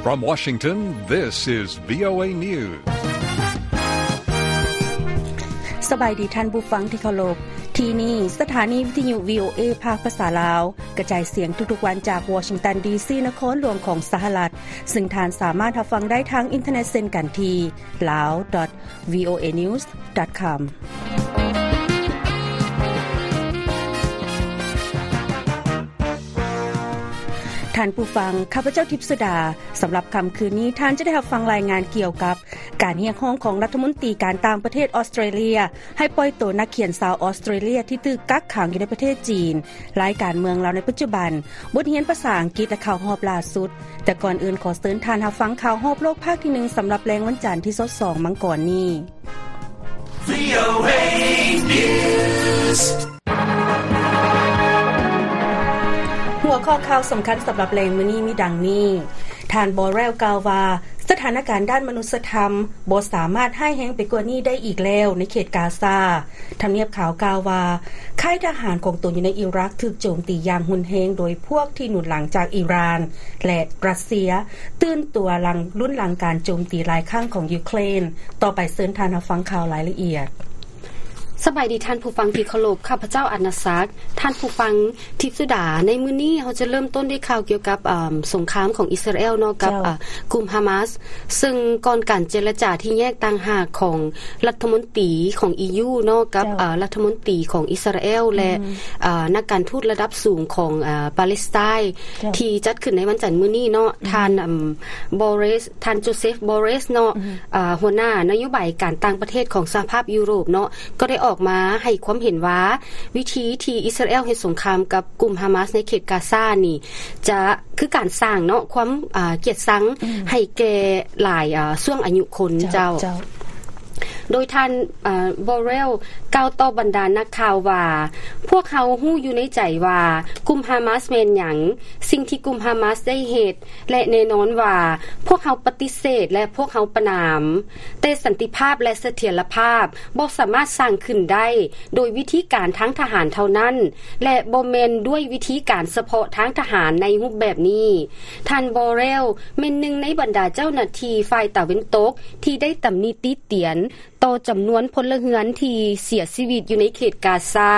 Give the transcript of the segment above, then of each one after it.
From Washington, this is VOA News. ສະບາຍດີທ່ານຜູ້ຟັງທີ່ເຄົາລົບ. ທີ່ນີ້ສະຖານີວິທະຍຸ VOA ພາກພາສາລາວ ກະຈາຍສຽງທຸກໆວັນຈາກວໍຊິງຕັນ ດີຊີ ນະຄອນຫຼວງຂອງສະຫະລັດ, ຊຶ່ງທ່ານສາມາດຮັບຟັງໄດ້ທາງອິນເຕີເນັດເຊັ່ນກັນທີ່ lao.voanews.com. ທ່ານຜູ້ຟັງ, ຂ້າພະເຈົ້າ ທິບສຸດາ. ສຳລັບຄ່ຳຄືນນີ້, ທ່ານຈະໄດ້ຮັບຟັງລາຍງານກ່ຽວກັບການຮຽກຮ້ອງຂອງລັດຖະມົນຕີການຕ່າງປະເທດອອສເຕຣເລຍ ໃຫ້ປ່ອຍໂຕນັກຂຽນຊາວອອສເຕຣເລຍທີ່ຖືກກັກຂັງຢູ່ໃນປະເທດຈີນ, ລາຍການເມືອງລາວໃນປັດຈຸບັນ, ບົດຮຽນພາສາອັງກິດ ແລະ ຂ່າວຮອບລ່າສຸດ. ແຕ່ກ່ອນອື່ນ, ຂໍເຊີນທ່ານຮັບຟັງຂ່າວຮອບໂລກພາກທີໜຶ່ງ ສຳລັບແລງວັນຈັນທີຊາວສອງມັງກອນນີ້. VOA News. ຫົວຂໍ້ຂ່າວສຳຄັນສຳລັບແລງມື້ນີ້ມີດັ່ງນີ້. ທ່ານ ບໍເຣວ ກ່າວວ່າ ສະຖານະການດ້ານມະນຸດສະທຳບໍ່ສາມາດຮ້າຍແຮງໄປກວ່ານີ້ໄດ້ອີກແລ້ວໃນເຂດກາຊາ. ທຳນຽບຂາວກ່າວວ່າ ຄ້າຍທະຫານຂອງຕົນຢູ່ໃນອີຣັກຖືກໂຈມຕີຢ່າງຮຸນແຮງໂດຍພວກທີ່ໜູນຫຼັງຈາກອີຣານ ແລະ ຣັດເຊຍ, ຕື່ນຕົວຫຼັງ ລຸ້ນຫຼັງການໂຈມຕີຫຼາຍຄັ້ງຂອງຢູເຄຣນ. ຕໍ່ໄປເຊີນທ່ານຮັບຟັງຂ່າວລາຍລະອຽດ. ສະບາຍດີທ່ານຜູ້ຟັງທີ່ເຄົາລົບ, ຂ້າພະເຈົ້າ ອານາສັກ. ທ່ານຜູ້ຟັງ ທິບສຸດາ, ໃນມື້ນີ້ເຮົາຈະເລີ່ມຕົ້ນດ້ວຍຂ່າວກ່ຽວກັບ ເອີ່ມ ສົງຄາມຂອງອິດສະຣາແອລເນາະ ກັບ ເຈົ້າ ເອີ່ ກຸ່ມຮາມາສ, ເຊິ່ງກ່ອນການເຈລະຈາທີ່ແຍກຕ່າງຫາກຂອງລັດຖະມົນຕີຂອງ ອີຢູ ເນາະ ກັບ ເຈົ້າ ເອີ່ ລັດຖະມົນຕີຂອງອິດສະຣາແອລ ແລະ ອືມ ເອີ່ ນັກການທູດລະດັບສູງຂອງ ເອີ່ ປາເລສໄຕ ເຈົ້າ ທີ່ຈັດຂຶ້ນໃນວັນຈັນມື້ນີ້ເນາະ, ອືມ ທ່ານ ເອີ່ມ ບໍເຣສ ທ່ານໂຈເຊຟ ບໍເຣສ ເນາະ ອືມ ເອີ່ ຫົວໜ້ານະໂຍບາຍການຕ່າງປະເທດຂອງສະຫະພາບຢູໂຣບເນາະ ກໍໄດ້ອອກມາໃຫ້ຄວາມເຫັນວ່າ ວິທີທີ່ອິດສະຣາແອລເຮັດສົງຄາມກັບກຸ່ມຮາມາສໃນເຂດກາຊານີ້ ຈະຄືການສ້າງເນາະ ຄວາມ ເອີ່ ກຽດຊັງ ອືມ ໃຫ້ແກ່ຫຼາຍ ເອີ່ ຊ່ວງອາຍຸຄົນ ເຈົ້າ ເຈົ້າ ເຈົ້າ. ໂດຍທ່ານ ເອີ່ ບໍເຣວ ກ່າວຕໍ່ບັນດານັກຂ່າວວ່າ ພວກເຮົາຮູ້ຢູ່ໃນໃຈວ່າກຸ່ມຮາມາສແມ່ນຫຍັງ, ສິ່ງທີ່ກຸ່ມຮາມາສໄດ້ເຮັດ ແລະ ແນ່ນອນວ່າພວກເຮົາປະຕິເສດ ແລະ ພວກເຮົາປະນາມ, ແຕ່ສັນຕິພາບ ແລະ ສະຖຽນລະພາບບໍ່ສາມາດສ້າງຂຶ້ນໄດ້ໂດຍວິທີການທາງທະຫານເທົ່ານັ້ນ ແລະ ບໍ່ແມ່ນດ້ວຍວິທີການສະເພາະທາງທະຫານໃນຮູບແບບນີ້. ທ່ານ ບໍເຣວ ແມ່ນໜຶ່ງໃນບັນດາເຈົ້າໜ້າທີ່ຝ່າຍຕາເວັນຕົກທີ່ໄດ້ຕຳໜິຕິຕຽນ ຕໍ່ຈຳນວນພົນລະເຮືອນທີ່ເສຍຊີວິດຢູ່ໃນເຂດກາຊາ.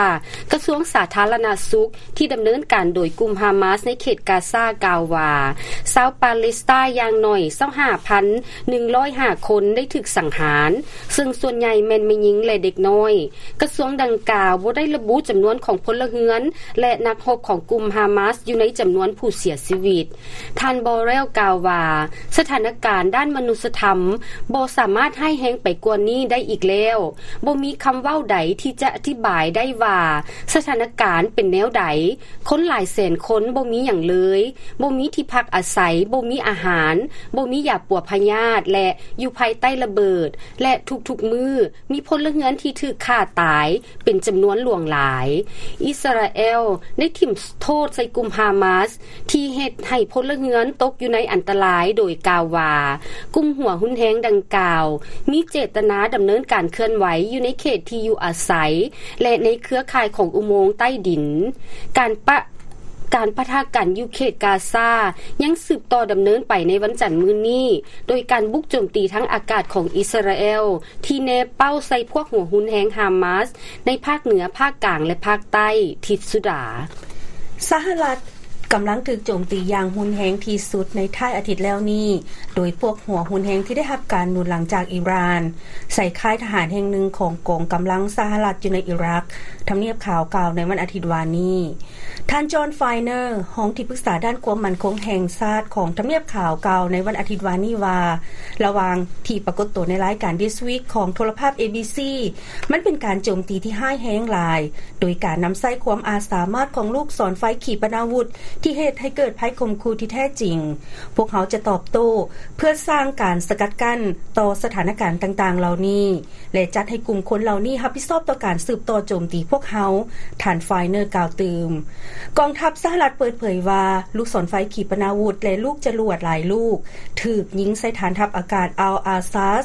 ກະຊວງສາທາລະນະສຸກທີ່ດຳເນີນການໂດຍກຸ່ມຮາມາສໃນເຂດກາຊາກ່າວວ່າ ຊາວປາເລສໄຕຢ່າງໜ້ອຍ ຊາວຫ້າພັນໜຶ່ງຮ້ອຍຫ້າຄົນໄດ້ຖືກສັງຫານ, ເຊິ່ງສ່ວນໃຫຍ່ແມ່ນແມ່ຍິງ ແລະ ເດັກນ້ອຍ. ກະຊວງດັ່ງກ່າວບໍ່ໄດ້ລະບຸຈຳນວນຂອງພົນລະເຮືອນ ແລະ ນັກຮົບຂອງກຸ່ມຮາມາສຢູ່ໃນຈຳນວນຜູ້ເສຍຊີວິດ. ທ່ານ ບໍເຣວ ກ່າວວ່າ ສະຖານະການດ້ານມະນຸດສະທຳບໍ່ສາມາດຮ້າຍແຮງໄປກວ່ານີ້ໄດ້ອີກແລ້ວ. ບໍ່ມີຄຳເວົ້າໃດທີ່ຈະອະທິບາຍໄດ້ວ່າສະຖານະການເປັນແນວໃດ. ຄົນຫຼາຍແສນຄົນບໍ່ມີຫຍັງເລີຍ, ບໍ່ມີທີ່ພັກອາໄສ, ບໍ່ມີອາຫານ, ບໍ່ມີຢາປົວພະຍາດ ແລະ ຢູ່ພາຍໃຕ້ລະເບີດ ແລະ ທຸກໆມື້ ມີພົນລະເຮືອນທີ່ຖືກຂ້າຕາຍເປັນຈຳນວນຫຼວງຫຼາຍ. ອິດສະຣາແອລໄດ້ຖິ້ມໂທດໃສ່ກຸ່ມຮາມາສທີ່ເຮັດໃຫ້ພົນລະເຮືອນຕົກຢູ່ໃນອັນຕະລາຍ ໂດຍກ່າວວ່າ ກຸ່ມຫົວຮຸນແຮງດັ່ງກ່າວມີເຈດຕະນາດຳເນີນການເຄື່ອນໄຫວຢູ່ໃນເຂດທີ່ຢູ່ອາໄສ ແລະ ໃນເຄືອຂ່າຍຂອງອຸໂມງໃຕ້ດິນ. ການປະ ການປະທະກັນຢູ່ເຂດກາຊາຍັງສືບຕໍ່ດຳເນີນໄປໃນວັນຈັນມື້ນີ້ ໂດຍການບຸກໂຈມຕີທາງອາກາດຂອງອິດສະຣາແອລ ທີ່ແນເປົ້າໃສ່ພວກຫົວຮຸນແຮງຮາມາສໃນພາກເໜືອ, ພາກກາງ ແລະ ພາກໃຕ້. ທິດສຸດາ. ສະຫະລັດກຳລັງຖືກໂຈມຕີຢ່າງຮຸນແຮງທີ່ສຸດໃນທ້າຍອາທິດແລ້ວນີ້ ໂດຍພວກຫົວຮຸນແຮງທີ່ໄດ້ຮັບການໜູນຫຼັງຈາກອີຣານ ໃສ່ຄ້າຍທະຫານແຫ່ງໜຶ່ງຂອງກອງກຳລັງສະຫະລັດຢູ່ໃນອີຣັກ, ທຳນຽບຂາວກ່າວໃນວັນອາທິດວານນີ້. ທ່ານ ຈອນ ຟາຍເນີ ຮອງທີ່ປຶກສາດ້ານຄວາມໝັ້ນຄົງແຫ່ງຊາດຂອງທຳນຽບຂາວກ່າວໃນວັນອາທິດວານນີ້ວ່າ ລະຫວ່າງທີ່ປາກົດໂຕໃນລາຍການ This Week ຂອງໂທລະພາບ ເອບີຊີ ມັນເປັນການໂຈມຕີທີ່ຮ້າຍແຮງຫຼາຍ ໂດຍການນຳໃຊ້ຄວາມອາດສາມາດຂອງລູກສອນໄຟຂີປະນາວຸດ ທີ່ເຮັດໃຫ້ເກີດໄພຂົ່ມຂູ່ທີ່ແທ້ຈິງ. ພວກເຮົາຈະຕອບໂຕ້ເພື່ອສ້າງການສະກັດກັ້ນຕໍ່ສະຖານະການຕ່າງໆເຫຼົ່ານີ້ ແລະ ຈັດໃຫ້ກຸ່ມຄົນເຫຼົ່ານີ້ຮັບຜິດຊອບຕໍ່ການສືບຕໍ່ໂຈມຕີພວກ ວກເຮົາ, ທ່ານ Finer ກ່າວຕື່ມ. ກອງທັບສະຫະລັດເປີດເຜີຍວ່າ ລູກສອນໄຟຂີປະນາວຸດ ແລະ ລູກຈະຫຼວດຫຼາຍລູກ ຖືກຍິງໃສ່ຖານທັບອາກາດ Al Asad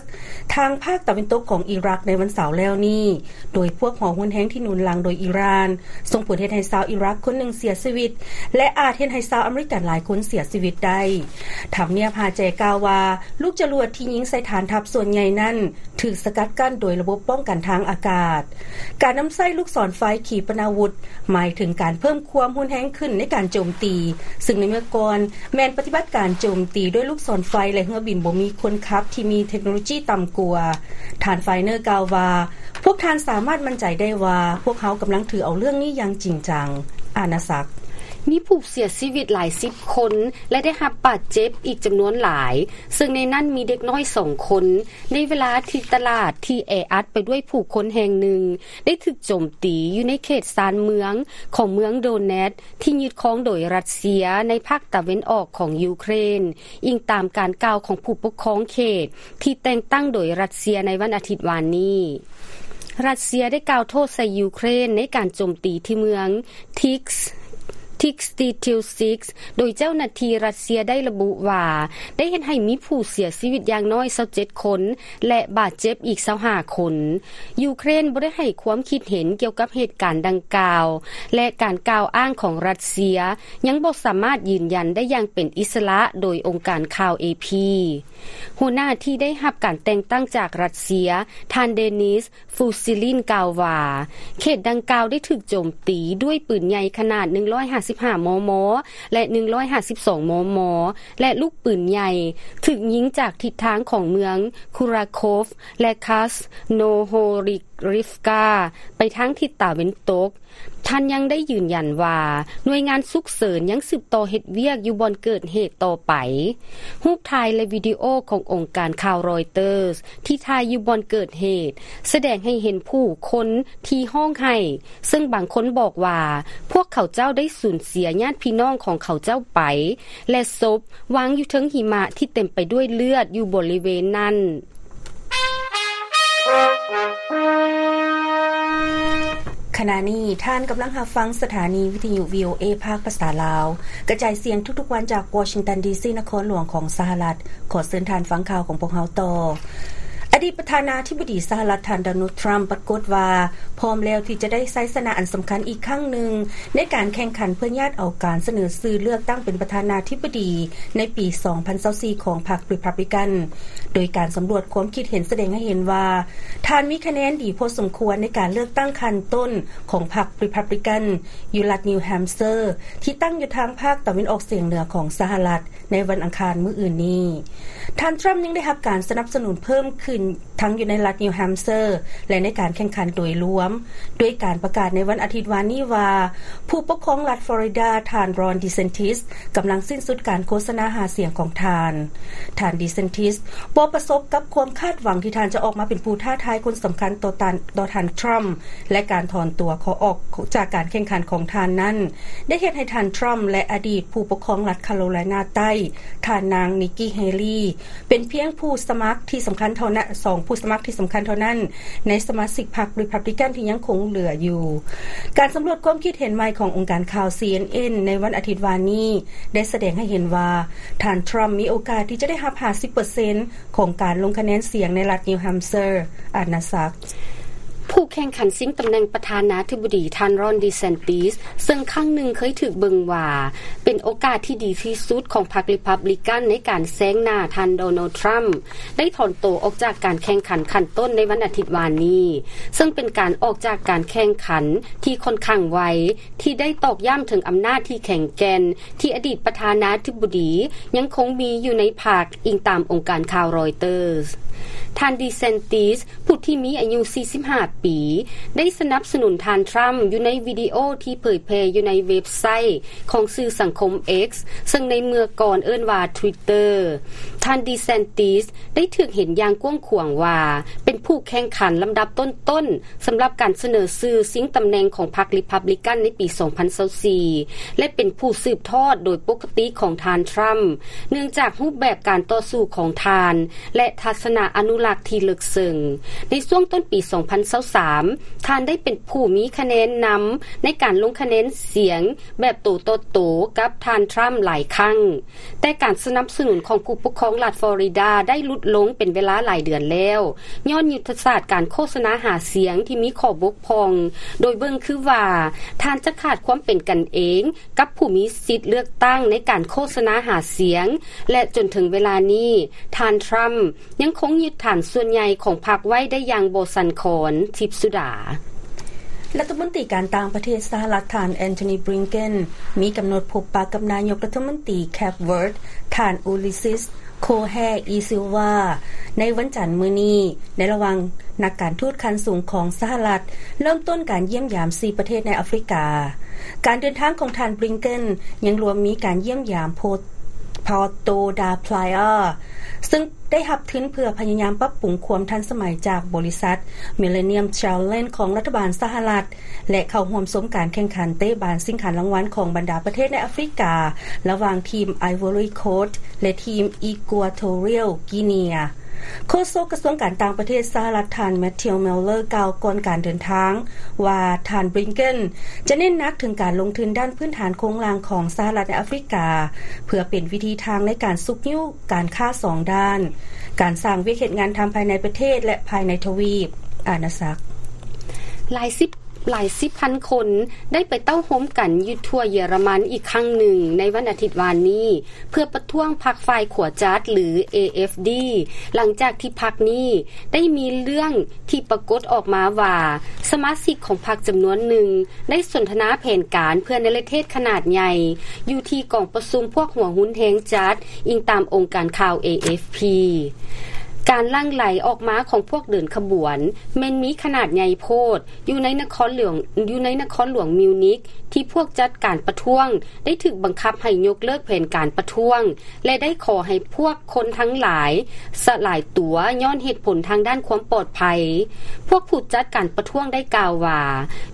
ທາງພາກຕາເວັນຕົກຂອງອີຣັກໃນວັນເສົາແລ້ວນີ້, ໂດຍພວກຫົວຮຸນແຮງທີ່ໜູນຫຼັງໂດຍອີຣານ ສົ່ງຜົນເຮັດໃຫ້ຊາວອີຣັກຄົນໜຶ່ງເສຍຊີວິດ ແລະ ອາດເຮັດໃຫ້ຊາວອາເມລິກັນຫຼາຍຄົນເສຍຊີວິດໄດ້. ທຳນຽບຮາແຈກ່າວວ່າ ລູກຈະຫຼວດທີ່ຍິງໃສ່ຖານທັບສ່ວນໃຫຍ່ນັ້ນ ຖືກສະກັດກັ້ນໂດຍລະບົບປ້ອງກັນທາງອາກາດ. ການນຳໃຊ້ລູກສອນໄຟຂີປະນາວຸດ ໝາຍເຖິງການເພີ່ມຄວາມຮຸນແຮງຂຶ້ນໃນການໂຈມຕີ, ຊຶ່ງໃນເມື່ອກ່ອນແມ່ນປະຕິບັດການໂຈມຕີດ້ວຍລູກສອນໄຟ ແລະ ເຮືອບິນບໍ່ມີຄົນຂັບທີ່ມີເທັກໂນໂລຢີຕ່ຳກວ່າ. ທ່ານ Finer ກ່າວວ່າ, ພວກທ່ານສາມາດໝັ້ນໃຈໄດ້ວ່າ ພວກເຮົາກຳລັງຖືເອົາເລື່ອງນີ້ຢ່າງຈິງຈັງ. ອານາສັກ. ມີຜູ້ເສຍຊີວິດຫຼາຍສິບຄົນ ແລະ ໄດ້ຮັບບາດເຈັບອີກຈຳນວນຫຼາຍ, ເຊິ່ງໃນນັ້ນມີເດັກນ້ອຍສອງຄົນ, ໃນເວລາທີ່ຕະຫຼາດທີ່ແອອັດໄປດ້ວຍຜູ້ຄົນແຫ່ງໜຶ່ງ ໄດ້ຖືກໂຈມຕີຢູ່ໃນເຂດຊານເມືອງຂອງເມືອງໂດແນດ ທີ່ຍຶດຄອງໂດຍຣັດເຊຍໃນພາກຕາເວັນອອກຂອງຢູເຄຣນ, ອີງຕາມການກ່າວຂອງຜູ້ປົກຄອງເຂດທີ່ແຕ່ງຕັ້ງໂດຍຣັດເຊຍໃນວັນອາທິດວານນີ້. ຣັດເຊຍໄດ້ກ່າວໂທດໃສ່ຢູເຄຣນໃນການໂຈມຕີທີ່ເມືອງ Tiks Tiks Titilsiks ໂດຍເຈົ້າໜ້າທີ່ຣັດເຊຍໄດ້ລະບຸວ່າ ໄດ້ເຮັດໃຫ້ມີຜູ້ເສຍຊີວິດຢ່າງນ້ອຍຊາວເຈັດຄົນ ແລະ ບາດເຈັບອີກຊາວຫ້າຄົນ. ຢູເຄຣນບໍ່ໄດ້ໃຫ້ຄວາມຄິດເຫັນກ່ຽວກັບເຫດການດັ່ງກ່າວ ແລະ ການກ່າວອ້າງຂອງຣັດເຊຍຍັງບໍ່ສາມາດຢືນຢັນໄດ້ຢ່າງເປັນອິດສະຫຼະໂດຍອົງການຂ່າວ AP. ຫົວໜ້າທີ່ໄດ້ຮັບການແຕ່ງຕັ້ງຈາກຣັດເຊຍ, ທ່ານ Denis Fusilin ກ່າວວ່າ ເຂດດັ່ງກ່າວໄດ້ຖືກໂຈມຕີດ້ວຍປືນໃຫຍ່ຂະໜາດໜຶ່ງຮ້ອຍຫ້າສິບຫ້າ ມມ ແລະ ໜຶ່ງຮ້ອຍຫ້າສິບສອງ ມມ ແລະ ລູກປືນໃຫຍ່ຖືກຍິງຈາກທິດທາງຂອງເມືອງ Kurakhov ແລະ Krasnohorivka ໄປທາງທິດຕາເວັນຕົກ. ທ່ານຍັງໄດ້ຢືນຢັນວ່າ ໜ່ວຍງານສຸກເສີນຍັງສືບຕໍ່ເຮັດວຽກຢູ່ບ່ອນເກີດເຫດຕໍ່ໄປ. ຮູບຖ່າຍ ແລະ ວິດີໂອຂອງອົງການຂ່າວ Reuters ທີ່ຖ່າຍຢູ່ບ່ອນເກີດເຫດ ສະແດງໃຫ້ເຫັນຜູ້ຄົນທີ່ຮ້ອງໄຫ້, ເຊິ່ງບາງຄົນບອກວ່າ ພວກເຂົາເຈົ້າໄດ້ສູນເສຍຍາດພີ່ນ້ອງຂອງເຂົາເຈົ້າໄປ ແລະ ສົບວາງຢູ່ເທິງຫິມະທີ່ເຕັມໄປດ້ວຍເລືອດຢູ່ບໍລິເວນນັ້ນ. ຂະນະນີ້ທ່ານກຳລັງຮັບຟັງສະຖານີວິທະຍຸ VOA ພາກພາສາລາວ ກະຈາຍສຽງທຸກໆວັນຈາກ Washington ດີ ຊີ ນະຄອນຫຼວງຂອງສະຫະລັດ. ຂໍເຊີນທ່ານຟັງຂ່າວຂອງພວກເຮົາຕໍ່. ອະດີດປະທານາທິບໍດີສະຫະລັດ ທ່ານ Donald Trump ປາກົດວ່າ ພ້ອມແລ້ວທີ່ຈະໄດ້ໄຊຊະນະອັນສຳຄັນອີກຄັ້ງໜຶ່ງ ໃນການແຂ່ງຂັນເພື່ອຍາດເອົາການສະເໜີຊື່ເລືອກຕັ້ງເປັນປະທານາທິບໍດີໃນປີສອງພັນຊາວສີ່ຂອງພັກ Republican ໂດຍການສຳຫຼວດຄວາມຄິດເຫັນສະແດງໃຫ້ເຫັນວ່າ ທ່ານມີຄະແນນດີພໍສົມຄວນໃນການເລືອກຕັ້ງຂັ້ນຕົ້ນຂອງພັກ Republican ຢູ່ລັດ New Hampshire ທີ່ຕັ້ງຢູ່ທາງພາກຕາເວັນອອກສຽງເໜືອຂອງສະຫະລັດ ໃນວັນອັງຄານມື້ອື່ນນີ້. ທ່ານ Trump ຍັງໄດ້ຮັບການສະໜັບສະໜູນເພີ່ມຂຶ້ນທັງຢູ່ໃນລັດ New Hampshire ແລະ ໃນການແຂ່ງຂັນໂດຍລວມ, ດ້ວຍການປະກາດໃນວັນອາທິດວານນີ້ວ່າ ຜູ້ປົກຄອງລັດ Florida ທ່ານ Ron DeSantis ກຳລັງສິ້ນສຸດການໂຄສະນາຫາສຽງຂອງທ່ານ. ທ່ານ DeSantis ບໍ່ປະສົບກັບຄວາມຄາດຫວັງທີ່ທ່ານຈະອອກມາເປັນຜູ້ທ້າທາຍຄົນສຳຄັນຕໍ່ທ່ານ ຕໍ່ທ່ານ Trump ແລະ ການຖອນຕົວຂໍອອກຈາກການແຂ່ງຂັນຂອງທ່ານນັ້ນ ໄດ້ເຮັດໃຫ້ທ່ານ Trump ແລະ ອະດີດຜູ້ປົກຄອງລັດ Carolina ໃຕ້ ທ່ານນາງ Nikki Haley ເປັນພຽງຜູ້ສະໝັກທີ່ສຳຄັນເທົ່ານັ້ນ, ສອງຜູ້ສະໝັກທີ່ສຳຄັນເທົ່ານັ້ນ ໃນສະມາຊິກພັກ Republican ທີ່ຍັງຄົງເຫຼືອຢູ່. ການສຳຫຼວດຄວາມຄິດເຫັນໃໝ່ຂອງອົງການຂ່າວ CNN ໃນວັນອາທິດວານນີ້ ໄດ້ສະແດງໃຫ້ເຫັນວ່າ ທ່ານ Trump ມີໂອກາດທີ່ຈະໄດ້ຮັບຫ້າສິບເປີເຊັນ ຂອງການລົງຄະແນນສຽງໃນລັດ New Hampshire. ອານາສັກ. ຜູ້ແຂ່ງຂັນຊິງຕຳແໜ່ງປະທານາທິບໍດີ ທ່ານ Ron DeSantis ເຊິ່ງຄັ້ງໜຶ່ງເຄີຍຖືກເບິ່ງວ່າເປັນໂອກາດທີ່ດີທີ່ສຸດຂອງພັກ Republican ໃນການແຊງໜ້າທ່ານ Donald Trump ໄດ້ຖອນໂຕອອກຈາກການແຂ່ງຂັນຂັ້ນຕົ້ນໃນວັນອາທິດວານນີ້, ເຊິ່ງເປັນການອອກຈາກການແຂ່ງຂັນທີ່ຂ້ອນຂ້າງໄວ ທີ່ໄດ້ຕອກຢ້ຳເຖິງອຳນາດທີ່ແຂງແກ່ນ ທີ່ອະດີດປະທານາທິບໍດີຍັງຄົງມີຢູ່ໃນພັກ, ອີງຕາມອົງການຂ່າວ Reuters. ທ່ານ DeSantis ຜູ້ທີ່ມີອາຍຸສີ່ສິບຫ້າປີ ໄດ້ສະໜັບສະໜູນທ່ານ Trump ຢູ່ໃນວິດີໂອທີ່ເຜີຍແຜ່ຢູ່ໃນເວັບໄຊຂອງສື່ສັງຄົມ X ເຊິ່ງໃນເມື່ອກ່ອນເອີ້ນວ່າ Twitter. ທ່ານ DeSantis ໄດ້ຖືກເຫັນຢ່າງກວ້າງຂວາງວ່າ ເປັນຜູ້ແຂ່ງຂັນລຳດັບຕົ້ນໆ ສຳລັບການສະເໜີຊື່ຊິງຕຳແໜ່ງຂອງພັກ Republican ໃນປີສອງພັນຊາວສີ່ ແລະ ເປັນຜູ້ສືບທອດໂດຍປົກກະຕິຂອງທ່ານ Trump ເນື່ອງຈາກຮູບແບບການຕໍ່ສູ້ຂອງທ່ານ ແລະ ທັດສະນະ ອະນຸລັກທີ່ເລິກເຊິ່ງ. ໃນຊ່ວງຕົ້ນປີສອງພັນຊາວສາມ ທ່ານໄດ້ເປັນຜູ້ມີຄະແນນນຳໃນການລົງຄະແນນສຽງແບບໂຕຕໍ່ໂຕກັບທ່ານທຣຳຫຼາຍຄັ້ງ, ແຕ່ການສະໜັບສະໜູນຂອງຜູ້ປົກຄອງລັດຟລໍຣິດາໄດ້ຫຼຸດລົງເປັນເວລາຫຼາຍເດືອນແລ້ວ, ຍ້ອນຍຸດທະສາດການໂຄສະນາຫາສຽງທີ່ມີຂໍ້ບົກຜ່ອງ, ໂດຍເບິ່ງຄືວ່າທ່ານຈະຂາດຄວາມເປັນກັນເອງ ກັບຜູ້ມີສິດເລືອກຕັ້ງໃນການໂຄສະນາຫາສຽງ ແລະ ຈົນເຖິງເວລານີ້ ທ່ານທຣຳຍັງຄົງຍຶດຖານສ່ວນໃຫຍ່ຂອງພັກໄວ້ໄດ້ຢ່າງບໍ່ສັ່ນຄອນ. ທິບສຸດາ. ລັດຖະມົນຕີການຕ່າງປະເທດສະຫະລັດ ທ່ານ ແອນໂທນີ ບລິງເກັນ ມີກຳນົດພົບປະກັບນາຍົກລັດຖະມົນຕີແຄບເວີດ ທ່ານ ອູລິຊິສ ໂຄແຮ ອີ ຊິລວາ ໃນວັນຈັນມື້ນີ້ ໃນລະຫວ່າງນັກການທູດຂັ້ນສູງຂອງສະຫະລັດ ເລີ່ມຕົ້ນການຢ້ຽມຢາມສີ່ປະເທດໃນອາຟຣິກາ. ການເດີນທາງຂອງທ່ານ ບລິງເກັນ ຍັງລວມມີການຢ້ຽມຢາມໂພ ພອໂຕ ດາ ພລາຍອາ ຊຶ່ງໄດ້ຮັບທຶນເພື່ອພະຍາຍາມປັບປຸງຄວາມທັນສະໄໝຈາກບໍລິສັດ Millennium Challenge ຂອງລັດຖະບານສະຫະລັດ ແລະ ເຂົ້າຮ່ວມຊົມການແຂ່ງຂັນເຕະບານຊິງຂັນລາງວັນຂອງບັນດາປະເທດໃນອາຟຣິກາ ລະຫວ່າງທີມໄອວໍຣີໂຄດ ແລະ ທີມອີກົວໂທຣຽວກີເນຍ. ໂຄສົກກະຊວງການຕ່າງປະເທດສະຫະລັດ ທ່ານ ແມັດທິວ ມິລເລີ ກ່າວກ່ອນການເດີນທາງວ່າ ທ່ານ ບລິງເກັນ ຈະເນັ້ນໜັກເຖິງການລົງທຶນດ້ານພື້ນຖານໂຄງລ່າງຂອງສະຫະລັດໃນອາຟຣິກາ ເພື່ອເປັນວິທີທາງໃນການຊຸກຍູ້ການຄ້າສອງດ້ານ, ການສ້າງວຽກເຮັດງານທຳພາຍໃນປະເທດ ແລະ ພາຍໃນທະວີບອານາຈັກ. ຫຼາຍສິບ ຫຼາຍສິບພັນຄົນໄດ້ໄປເຕົ້າໂຮມກັນຢູ່ທົ່ວເຢຍລະມັນອີກຄັ້ງໜຶ່ງໃນວັນອາທິດວານນີ້ ເພື່ອປະທ້ວງພັກຝ່າຍຂວາຈັດ ຫຼື ເອ ເອັຟ ດີ ຫຼັງຈາກທີ່ພັກນີ້ໄດ້ມີເລື່ອງທີ່ປາກົດອອກມາວ່າ ສະມາຊິກຂອງພັກຈຳນວນໜຶ່ງໄດ້ສົນທະນາແຜນການເພື່ອເນລະເທດຂະໜາດໃຫຍ່ ຢູ່ທີ່ກອງປະຊຸມພວກຫົວຮຸນແຮງຈັດ, ອີງຕາມອົງການຂ່າວ ເອ ເອັຟ ພີ. ການຫຼັ່ງໄຫຼອອກມາຂອງພວກເດີນຂະບວນແມ່ນມີຂະໜາດໃຫຍ່ໂພດ ຢູ່ໃນນະຄອນຫຼວງ ຢູ່ໃນນະຄອນຫຼວງມິວນິກ ທີ່ພວກຈັດການປະທ້ວງໄດ້ຖືກບັງຄັບໃຫ້ຍົກເລີກແຜນການປະທ້ວງ ແລະ ໄດ້ຂໍໃຫ້ພວກຄົນທັງຫຼາຍສະຫຼາຍຕົວຍ້ອນເຫດຜົນທາງດ້ານຄວາມປອດໄພ. ພວກຜູ້ຈັດການປະທ້ວງໄດ້ກ່າວວ່າ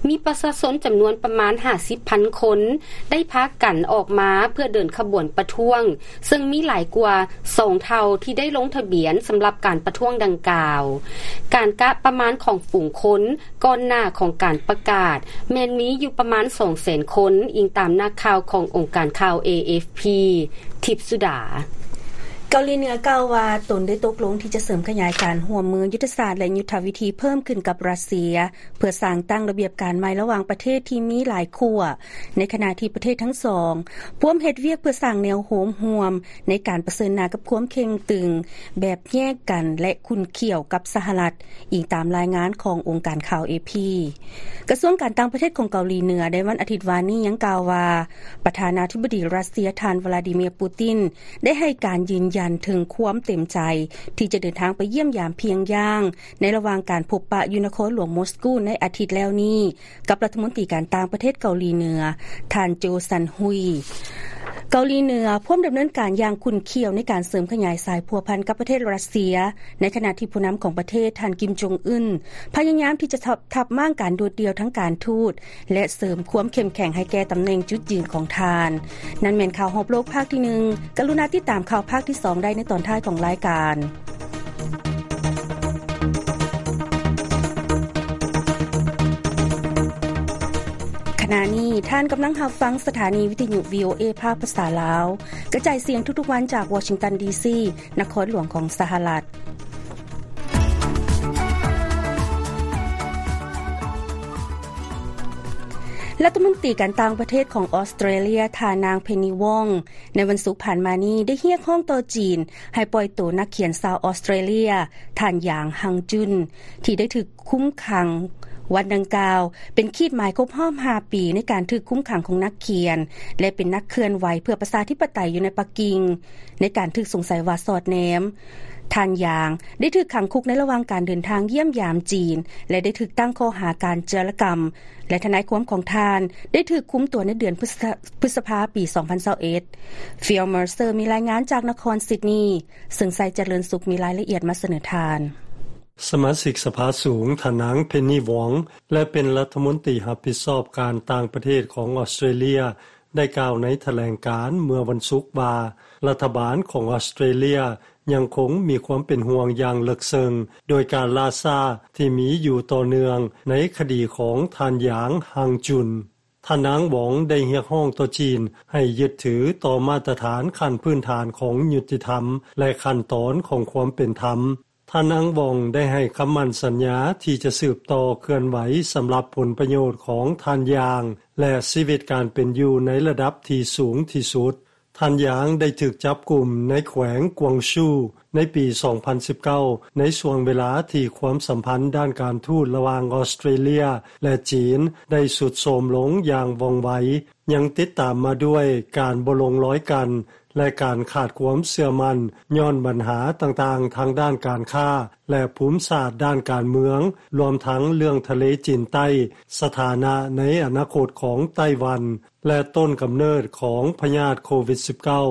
ມີປະຊາຊົນຈຳນວນປະມານຫ້າສິບພັນຄົນ ໄດ້ພາກັນອອກມາເພື່ອເດີນຂະບວນປະທ້ວງ ເຊິ່ງມີຫຼາຍກວ່າສອງເທົ່າທີ່ໄດ້ລົງທະບຽນສຳລັບການປະທ້ວງດັ່ງກ່າວ. ການກະປະມານຂອງຝູງຄົນ ກ່ອນໜ້າຂອງການປະກາດ ແມ່ນມີຢູ່ປະມານສອງແສນຄົນ, ອີງຕາມນັກຂ່າວຂອງອົງການຂ່າວ ເອ ເອັຟ ພີ. ທິບສຸດາ. ເກົາຫຼີເໜືອກ່າວວ່າ ຕົນໄດ້ຕົກລົງທີ່ຈະເສີມຂະຫຍາຍການຮ່ວມມືຍຸດທະສາດ ແລະ ຍຸດທະວິທີເພີ່ມຂຶ້ນກັບຣັດເຊຍ ເພື່ອສ້າງຕັ້ງລະບຽບການໃໝ່ລະຫວ່າງປະເທດທີ່ມີຫຼາຍຂົ້ວ, ໃນຂະນະທີ່ປະເທດທັງສອງພວມເຮັດວຽກເພື່ອສ້າງແນວໂນ້ມຮ່ວມໃນການປະເຊີນໜ້າກັບຄວາມເຄັ່ງຕຶງແບບແຍກກັນ ແລະ ຂຸ້ນຂ້ຽວກັບສະຫະລັດ. ອີງຕາມລາຍງານຂອງອົງການຂ່າວ ເອ ພີ. ກະຊວງການຕ່າງປະເທດຂອງເກົາຫຼີເໜືອໃນວັນອາທິດວານນີ້ຍັງກ່າວວ່າ ປະທານາທິບໍດີຣັດເຊຍ ທ່ານ ວລາດີເມຍ ປູຕິນ ໄດ້ໃຫ້ການຢືນຢັນເຖິງຄວາມເຕັມໃຈທີ່ຈະເດີນທາງໄປຢ້ຽມຢາມພຽງຢ່າງ ໃນລະຫວ່າງການພົບປະຢູ່ນະຄອນຫຼວງມົສກູໃນອາທິດແລ້ວນີ້ ກັບລັດຖະມົນຕີການຕ່າງປະເທດເກົາຫຼີເໜືອ ທ່ານ ໂຈ ຊັນຮຸຍ. ເກົາຫຼີເໜືອພວມດຳເນີນການຢ່າງຂຸ້ນຂ້ຽວໃນການເສີມຂະຫຍາຍສາຍພົວພັນກັບປະເທດຣັດເຊຍ, ໃນຂະນະທີ່ຜູ້ນຳຂອງປະເທດ ທ່ານ ກິມ ຈົງອຶນ ພະຍາຍາມທີ່ຈະທັບ ທັບມ້າງການໂດດດ່ຽວທາງການທູດ ແລະ ເສີມຄວາມເຂັ້ມແຂງໃຫ້ແກ່ຕຳແໜ່ງຈຸດຢືນຂອງທ່ານ. ນັ້ນແມ່ນຂ່າວຮອບໂລກພາກທີໜຶ່ງ. ກະລຸນາຕິດຕາມຂ່າວພາກທີສອງໄດ້ໃນຕອນທ້າຍຂອງລາຍການ. ຂະນະນີ້ທ່ານກຳລັງຮັບຟັງສະຖານີວິທະຍຸ ວີ ໂອ ເອ ພາກພາສາລາວ ກະຈາຍສຽງທຸກໆວັນຈາກວໍຊິງຕັນ ດີ ຊີ ນະຄອນຫຼວງຂອງສະຫະລັດ. ລັດຖະມົນຕີການຕ່າງປະເທດຂອງອອສເຕຣເລຍ ທ່ານນາງ ເພັນນີ ວອງ ໃນວັນສຸກຜ່ານມານີ້ໄດ້ຮຽກຮ້ອງຕໍ່ຈີນໃຫ້ປ່ອຍໂຕນັກຂຽນຊາວອອສເຕຣເລຍ ທ່ານ ຢາງ ຮັງຈຸນ ທີ່ໄດ້ຖືກຄຸມຂັງ. ວັນດັ່ງກ່າວເປັນຂີດໝາຍຄົບຮອບຫ້າປີໃນການຖືກຄຸມຂັງຂອງນັກຂຽນ ແລະ ເປັນນັກເຄື່ອນໄຫວເພື່ອປະຊາທິປະໄຕຢູ່ໃນປັກກິ່ງ ໃນການຖືກສົງໄສວ່າສອດແນມ. ທ່ານ ຢາງ ໄດ້ຖືກຂັງຄຸກໃນລະຫວ່າງການເດີນທາງຢ້ຽມຢາມຈີນ ແລະ ໄດ້ຖືກຕັ້ງຂໍ້ຫາການຈາລະກຳ ແລະ ທະນາຍຄວາມຂອງທ່ານໄດ້ຖືກຄຸມຕົວໃນເດືອນພຶດສະ ພຶດສະພາ ປີສອງພັນຊາວເອັດ. ຟີລ ເມີເຊີ ມີລາຍງານຈາກນະຄອນຊິດນີ ເຊິ່ງໄຊຈະເລີນສຸກມີລາຍລະອຽດມາສະເໜີທ່ານ. ສະມາຊິກສະພາສູງ ທ່ານນາງ ເພັນນີ ວອງ ແລະ ເປັນລັດຖະມົນຕີຮັບຜິດຊອບການຕ່າງປະເທດຂອງອອສເຕຣເລຍ ໄດ້ກ່າວໃນຖະແຫຼງການເມື່ອວັນສຸກວ່າ ລັດຖະບານຂອງອອສເຕຣເລຍ ຍັງຄົງມີຄວາມເປັນຫ່ວງຢ່າງເລິກເຊິ່ງ ໂດຍການລ່າຊ້າທີ່ມີຢູ່ຕໍ່ເນື່ອງໃນຄະດີຂອງທ່ານ ຢາງ ຮັງຈຸນ. ທ່ານນາງ ວອງ ໄດ້ຮຽກຮ້ອງຕໍ່ຈີນໃຫ້ຍຶດຖືຕໍ່ມາດຕະຖານຂັ້ນພື້ນຖານຂອງຍຸຕິທຳ ແລະ ຂັ້ນຕອນຂອງຄວາມເປັນທຳ. ທ່ານນາງ ວອງ ໄດ້ໃຫ້ຄຳໝັ້ນສັນຍາທີ່ຈະສືບຕໍ່ເຄື່ອນໄຫວສຳລັບຜົນປະໂຫຍດຂອງທ່ານ ຢາງ ແລະ ຊີວິດການເປັນຢູ່ໃນລະດັບທີ່ສູງທີ່ສຸດ. ທ່ານ ຢາງ ໄດ້ຖືກຈັບກຸມໃນແຂວງກວາງຊູໃນປີສອງພັນສິບເກົ້າ ໃນຊ່ວງເວລາທີ່ຄວາມສຳພັນດ້ານການທູດລະຫວ່າງອອສເຕຣເລຍ ແລະ ຈີນໄດ້ຊຸດໂຊມລົງຢ່າງວ່ອງໄວ. ຍັງຕິດຕາມມາດ້ວຍການບໍ່ລົງລອຍກັນ ແລະ ການຂາດຄວາມເຊື່ອໝັ້ນ ຍ້ອນບັນຫາຕ່າງໆທາງດ້ານການຄ້າ ແລະ ພູມສາດດ້ານການເມືອງ, ລວມທັງເລື່ອງທະເລຈີນໃຕ້, ສະຖານະໃນອະນາຄົດຂອງໄຕ້ຫວັນ ແລະ ຕົ້ນກຳເນີດຂອງພະຍາດໂຄວິດສິບເກົ້າ.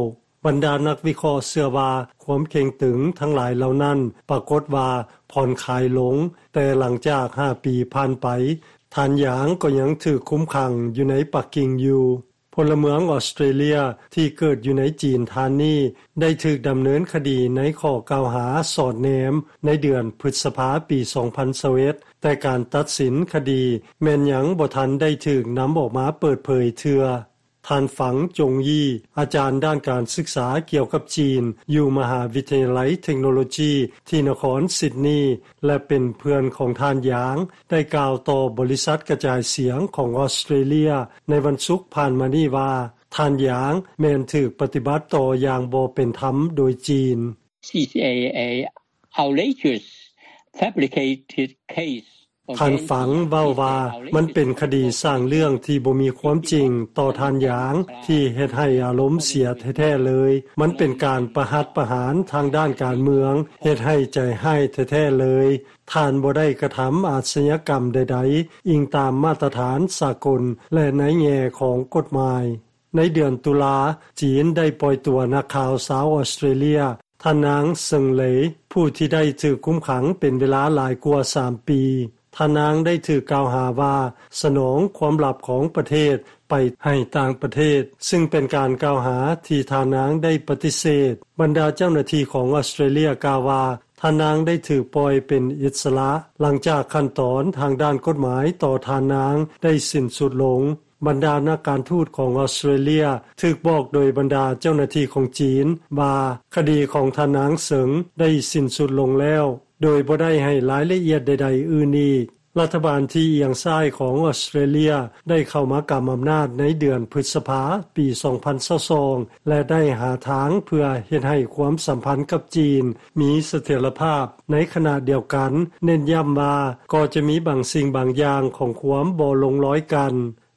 ບັນດານັກວິເຄາະເຊື່ອວ່າ ຄວາມເຄັ່ງຕຶງທັງຫຼາຍເຫຼົ່ານັ້ນປາກົດວ່າຜ່ອນຄາຍລົງ, ແຕ່ຫຼັງຈາກຫ້າປີຜ່ານໄປ, ທ່ານ ຢາງ ກໍຍັງຖືກຄຸມຂັງຢູ່ໃນປັກກິ່ງຢູ່. ພົນລະເມືອງອອສເຕຣເລຍທີ່ເກີດຢູ່ໃນຈີນທ່ານນີ້ ໄດ້ຖືກດຳເນີນຄະດີໃນຂໍ້ກ່າວຫາສອດແນມໃນເດືອນພຶດສະພາປີສອງພັນຊາວເອັດ ແຕ່ການຕັດສິນຄະດີແມ່ນຍັງບໍ່ທັນໄດ້ຖືກນຳອອກມາເປີດເຜີຍເທື່ອ. ທ່ານ ຝັງ ຈົງຢີ ອາຈານດ້ານການສຶກສາກ່ຽວກັບຈີນຢູ່ມະຫາວິທະຍາໄລເທັກໂນໂລຈີທີ່ນະຄອນຊິດນີ ແລະ ເປັນເພື່ອນຂອງທ່ານ ຢາງ ໄດ້ກ່າວຕໍ່ບໍລິສັດກະຈາຍສຽງຂອງອອສເຕຣເລຍໃນວັນສຸກຜ່ານມານີ້ວ່າ ທ່ານ ຢາງ ແມ່ນຖືກປະຕິບັດຕໍ່ຢ່າງບໍ່ເປັນທຳໂດຍຈີນ. C C A A outrageous fabricated case ທ່ານ ຝັງ ເວົ້າວ່າ ມັນເປັນຄະດີສ້າງເລື່ອງທີ່ບໍ່ມີຄວາມຈິງຕໍ່ທ່ານ ຢາງ ທີ່ເຮັດໃຫ້ອາລົມເສຍແທ້ໆເລີຍ. ມັນເປັນການປະຫັດປະຫານທາງດ້ານການເມືອງ, ເຮັດໃຫ້ໃຈຮ້າຍແທ້ໆເລີຍ. ທ່ານບໍ່ໄດ້ກະທຳອາຊະຍາກຳໃດໆ, ອີງຕາມມາດຕະຖານສາກົນ ແລະ ໃນແງ່ຂອງກົດໝາຍ. ໃນເດືອນຕຸລາ, ຈີນໄດ້ປ່ອຍຕົວນັກຂ່າວຊາວອອສເຕຣເລຍ ທ່ານນາງ ເຊິ່ງ ເລ ຜູ້ທີ່ໄດ້ຖືກຄຸມຂັງເປັນເວລາຫຼາຍກວ່າສາມປີ. ທ່ານນາງໄດ້ຖືກກ່າວຫາວ່າສະໜອງຄວາມລັບຂອງປະເທດໄປໃຫ້ຕ່າງປະເທດ, ຊຶ່ງເປັນການກ່າວຫາທີ່ທ່ານນາງໄດ້ປະຕິເສດ. ບັນດາເຈົ້າໜ້າທີ່ຂອງອອສເຕຣເລຍກ່າວວ່າ ທ່ານນາງໄດ້ຖືກປ່ອຍເປັນອິດສະຫຼະ ຫຼັງຈາກຂັ້ນຕອນທາງດ້ານກົດໝາຍຕໍ່ທ່ານນາງໄດ້ສິ້ນສຸດລົງ. ບັນດານັກການທູດຂອງອອສເຕຣເລຍຖືກບອກໂດຍບັນດາເຈົ້າໜ້າທີ່ຂອງຈີນວ່າ ຄະດີຂອງທ່ານນາງເສີງໄດ້ສິ້ນສຸດລົງແລ້ວ, ໂດຍບໍ່ໄດ້ໃຫ້ລາຍລະອຽດໃດໆອື່ນອີກ. ລັດຖະບານທີ່ອຽງຊ້າຍຂອງອອສເຕຣເລຍໄດ້ເຂົ້າມາກຳອຳນາດໃນເດືອນພຶດສະພາປີສອງພັນຊາວສອງ ແລະ ໄດ້ຫາທາງເພື່ອເຮັດໃຫ້ຄວາມສຳພັນກັບຈີນມີສະຖຽນລະພາບ. ໃນຂະນະດຽວກັນ ເນັ້ນຢ້ຳວ່າກໍຈະມີບາງສິ່ງບາງຢ່າງຂອງຄວາມບໍ່ລົງລອຍກັນ.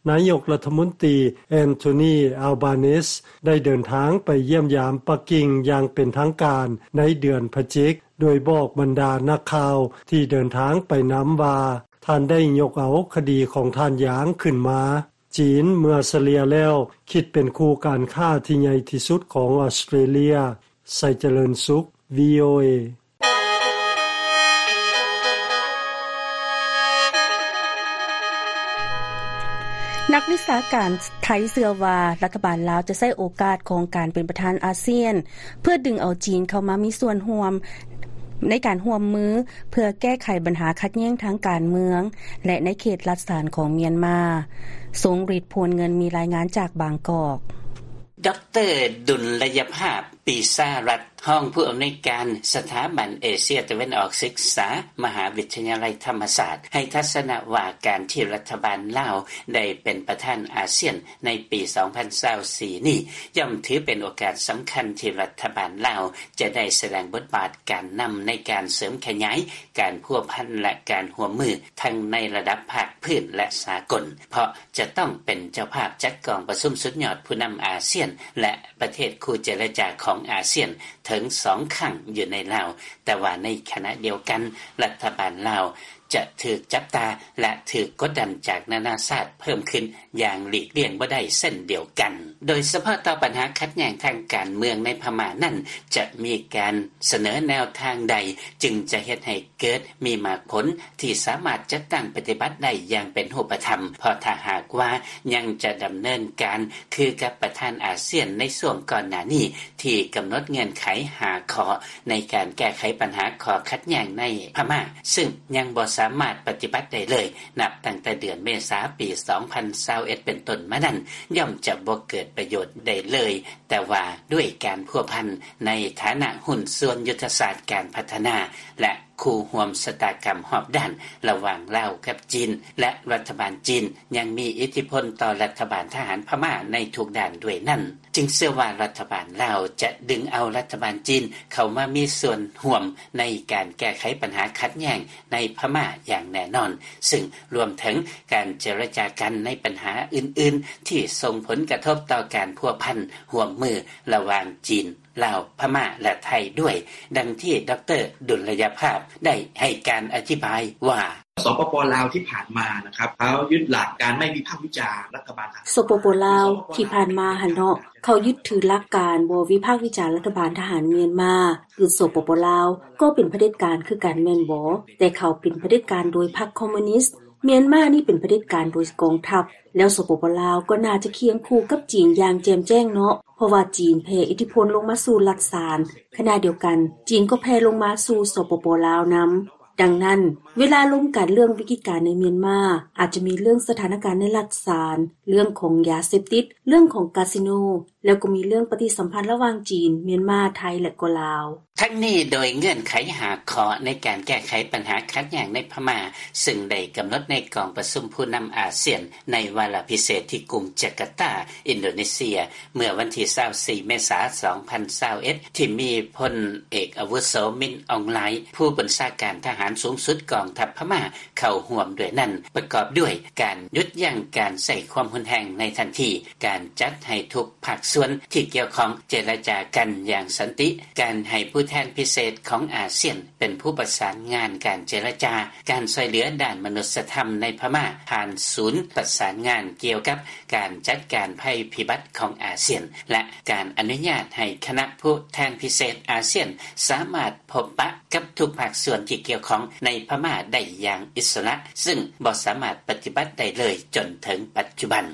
ນາຍົກລັດຖະມົນຕີ ແອນໂທນີ ອາລບານີສ ໄດ້ເດີນທາງໄປຢ້ຽມຢາມປັກກິ່ງຢ່າງເປັນທາງການໃນເດືອນພະຈິກ, ໂດຍບອກບັນດານັກຂ່າວທີ່ເດີນທາງໄປນຳວ່າ ທ່ານໄດ້ຍົກເອົາຄະດີຂອງທ່ານຢາງຂຶ້ນມາ. ຈີນເມື່ອສະເລ່ຍແລ້ວຄິດເປັນຄູ່ການຄ້າທີ່ໃຫຍ່ທີ່ສຸດຂອງອອສເຕຣເລຍ. ໄຊຈະເລີນສຸກ ວີໂອເອ. ນັກວິຊາການໄທເຊື່ອວ່າ ລັດຖະບານລາວຈະໃຊ້ໂອກາດຂອງການເປັນປະທານອາຊຽນ ເພື່ອດຶງເອົາຈີນເຂົ້າມາມີສ່ວນຮ່ວມໃນການຮ່ວມມື ເພື່ອແກ້ໄຂບັນຫາຂັດແຍ່ງທາງການເມືອງ ແລະ ໃນເຂດລັດສານຂອງມຽນມາ. ຊົງລິດ ພວນເງິນ ມີລາຍງານຈາກບາງກອກ. ດຣ. ດຸນລະຍະພາບ ປີຊາລັດ ຮອງຜູ້ອຳນວຍການສະຖາບັນເອເຊຍຕາເວັນອອກສຶກສາ ມະຫາວິທະຍາໄລທຳມະສາດ ໃຫ້ທັດສະນະວ່າ ການທີ່ລັດຖະບານລາວໄດ້ເປັນປະທານອາຊຽນໃນປີສອງພັນຊາວສີ່ນີ້ ຍ່ອມຖືເປັນໂອກາດສຳຄັນທີ່ລັດຖະບານລາວຈະໄດ້ສະແດງບົດບາດການນຳໃນການເສີມຂະຫຍາຍການພົວພັນ ແລະ ການຮ່ວມມືທັງໃນລະດັບພາກພື້ນ ແລະ ສາກົນ ເພາະຈະຕ້ອງເປັນເຈົ້າພາບຈັດກອງປະຊຸມສຸດຍອດຜູ້ນຳອາຊຽນ ແລະ ປະເທດຄູ່ເຈລະຈາຂອງອາຊຽນເຖິງສອງຄັ້ງຢູ່ໃນລາວ, ແຕ່ວ່າໃນຂະນະດຽວກັນ ລັດຖະບານລາວ ຈະຖືກຈັບຕາ ແລະ ຖືກກົດດັນຈາກນານາຊາດເພີ່ມຂຶ້ນຢ່າງຫຼີກລ່ຽງບໍ່ໄດ້ເຊັ່ນດຽວກັນ. ໂດຍສະເພາະຕໍ່ບັນຫາຂັດແຍ່ງທາງການເມືອງໃນພະມ້ານັ້ນ ຈະມີການສະເໜີແນວທາງໃດ ຈຶ່ງຈະເຮັດໃຫ້ເກີດມີໝາກຜົນທີ່ສາມາດຈັດຕັ້ງປະຕິບັດໄດ້ຢ່າງເປັນຮູບປະທຳ, ເພາະຖ້າຫາກວ່າຍັງຈະດຳເນີນການຄືກັບປະທານອາຊຽນໃນຊ່ວງກ່ອນໜ້ານີ້ ທີ່ກຳນົດເງື່ອນໄຂຫ້າຂໍ້ໃນການແກ້ໄຂບັນຫາຂໍ້ຂັດແຍ່ງໃນພະມ້າ ຊຶ່ງຍັງບໍ່ສາມາດປະຕິບັດໄດ້ເລີຍ ນັບຕັ້ງແຕ່ເດືອນເມສາປີສອງພັນຊາວເອັດເປັນຕົ້ນມານັ້ນ ຍ່ອມຈະບໍ່ເກີດປະໂຫຍດໃດເລີຍ, ແຕ່ວ່າດ້ວຍການພົວພັນໃນຖານະຫຸ້ນສ່ວນຍຸດທະສາດການພັດທະນາ ແລະ ຄູ່ຮ່ວມຊະຕາກຳຮອບດ້ານລະຫວ່າງລາວກັບຈີນ ແລະ ລັດຖະບານຈີນຍັງມີອິດທິພົນຕໍ່ລັດຖະບານທະຫານພະມ້າໃນທຸກດ້ານດ້ວຍນັ້ນ, ຈຶ່ງເຊື່ອວ່າລັດຖະບານລາວຈະດຶງເອົາລັດຖະບານຈີນເຂົ້າມາມີສ່ວນຮ່ວມໃນການແກ້ໄຂບັນຫາຂັດແຍ່ງໃນພະມ້າຢ່າງແນ່ນອນ, ຊຶ່ງລວມເຖິງການເຈລະຈາກັນໃນບັນຫາອື່ນໆ ທີ່ສົ່ງຜົນກະທົບຕໍ່ການພົວພັນຮ່ວມມືລະຫວ່າງຈີນ, ລາວ, ພະມ້າ ແລະ ໄທດ້ວຍ, ດັ່ງທີ່ ດຣ. ດຸນລະຍະພາບ ໄດ້ໃຫ້ການອະທິບາຍວ່າ: ສປປ ລາວທີ່ຜ່ານມາนะครับ เขายึดหลักการไม่วิพากษ์วิจารณ์รัฐบาลทหาร ສປປ ລາວທີ່ຜ່ານມາຫັ້ນເນາະ ເຂົາຍຶດຖືຫຼັກການບໍ່ວິພາກວິຈານລັດຖະບານທະຫານມຽນມາ ຄື ສປປ ລາວ ກໍເປັນຜະເດັດການຄືກັນແມ່ນບໍ່? ແຕ່ເຂົາເປັນຜະເດັດການໂດຍພັກຄອມມູນິດ, ມຽນມານີ້ເປັນຜະເດັດການໂດຍກອງທັບ, ແລ້ວ ສປປ ລາວ ກໍໜ້າຈະຄຽງຄູ່ກັບຈີນຢ່າງແຈ່ມແຈ້ງເນາະ ເພາະວ່າຈີນແຜ່ອິດທິພົນລົງມາສູ່ລັດສານ, ຂະນະດຽວກັນ ຈີນກໍແຜ່ລົງມາສູ່ ສປປ ລາວ ນຳ. ດັ່ງນັ້ນ ເວລາລົມກັນເລື່ອງວິກິດການໃນມຽນມາ ອາດຈະມີເລື່ອງສະຖານະການໃນລັດສານ, ເລື່ອງຂອງຢາເສບຕິດ, ເລື່ອງຂອງກາສິໂນ, ແລ້ວກໍມີເລື່ອງປະຕິສຳພັນລະຫວ່າງຈີນ, ມຽນມາ, ໄທ ແລະ ກໍລາວ. ທັງນີ້ໂດຍເງື່ອນໄຂຫ້າຂໍ້ໃນການແກ້ໄຂບັນຫາຂັດແຍ່ງໃນພະມ້າ ຊຶ່ງໄດ້ກຳນົດໃນກອງປະຊຸມຜູ້ນຳອາຊຽນໃນວາລະພິເສດທີ່ກຸງຈາກາຕາ, ອິນໂດເນເຊຍ ເມື່ອວັນທີຊາວສີ່ ເມສາ ສອງພັນຊາວເອັດ ທີ່ມີພົນເອກອາວຸໂສ ມິນ ອອງ ລາຍ ຜູ້ບັນຊາການທະຫານສູງສຸດກອງທັບພະມ້າເຂົ້າຮ່ວມດ້ວຍນັ້ນ ປະກອບດ້ວຍການຢຸດຢັ້ງການໃຊ້ຄວາມຮຸນແຮງໃນທັນທີ, ການຈັດໃຫ້ທຸກພາກສ່ວນທີ່ກ່ຽວຂ້ອງເຈລະຈາກັນຢ່າງສັນຕິ, ການໃຫ້ຜູ້ແທນພິເສດຂອງອາຊຽນເປັນຜູ້ປະສານງານການເຈລະຈາ, ການຊ່ວຍເຫຼືອດ້ານມະນຸດສະທຳໃນພະມ້າຜ່ານສູນປະສານງານກ່ຽວກັບ ການຈັດການໄພພິບັດຂອງອາຊຽນ ແລະ ການອະນຸຍາດໃຫ້ຄະນະຜູ້ແທນພິເສດອາຊຽນສາມາດພົບປະກັບທຸກພາກສ່ວນທີ່ກ່ຽວຂ້ອງໃນພະມ້າໄດ້ຢ່າງອິດສະຫຼະ, ຊຶ່ງບໍ່ສາມາດປະຕິບັດໄດ້ເລີຍຈົນເຖິງປັດຈຸບັນ.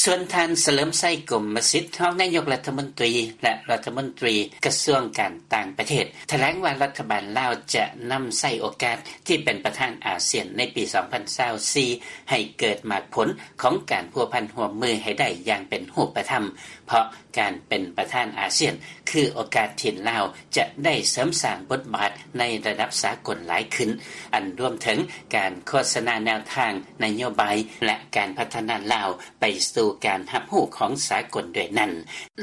ສ່ວນທ່ານ ສະເຫຼີມໄຊ ກົມມະສິດ ຮອງນາຍົກລັດຖະມົນຕີ ແລະ ລັດຖະມົນຕີກະຊວງການຕ່າງປະເທດ ຖະແຫຼງວ່າລັດຖະບານລາວຈະນຳໃຊ້ໂອກາດທີ່ເປັນປະທານອາຊຽນໃນປີສອງພັນຊາວສີ່ ໃຫ້ເກີດໝາກຜົນຂອງການພົວພັນຮ່ວມມືໃຫ້ໄດ້ຢ່າງເປັນຮູບປະທຳ, ເພາະການເປັນປະທານອາຊຽນຄືໂອກາດທີ່ລາວຈະໄດ້ເສີມສ້າງບົດບາດໃນລະດັບສາກົນຫຼາຍຂຶ້ນ, ອັນລວມເຖິງການໂຄສະນາແນວທາງນະໂຍບາຍ ແລະ ການພັດທະນາລາວໄປສູ່ການຮັບຮູ້ຂອງສາກົນດ້ວຍນັ້ນ.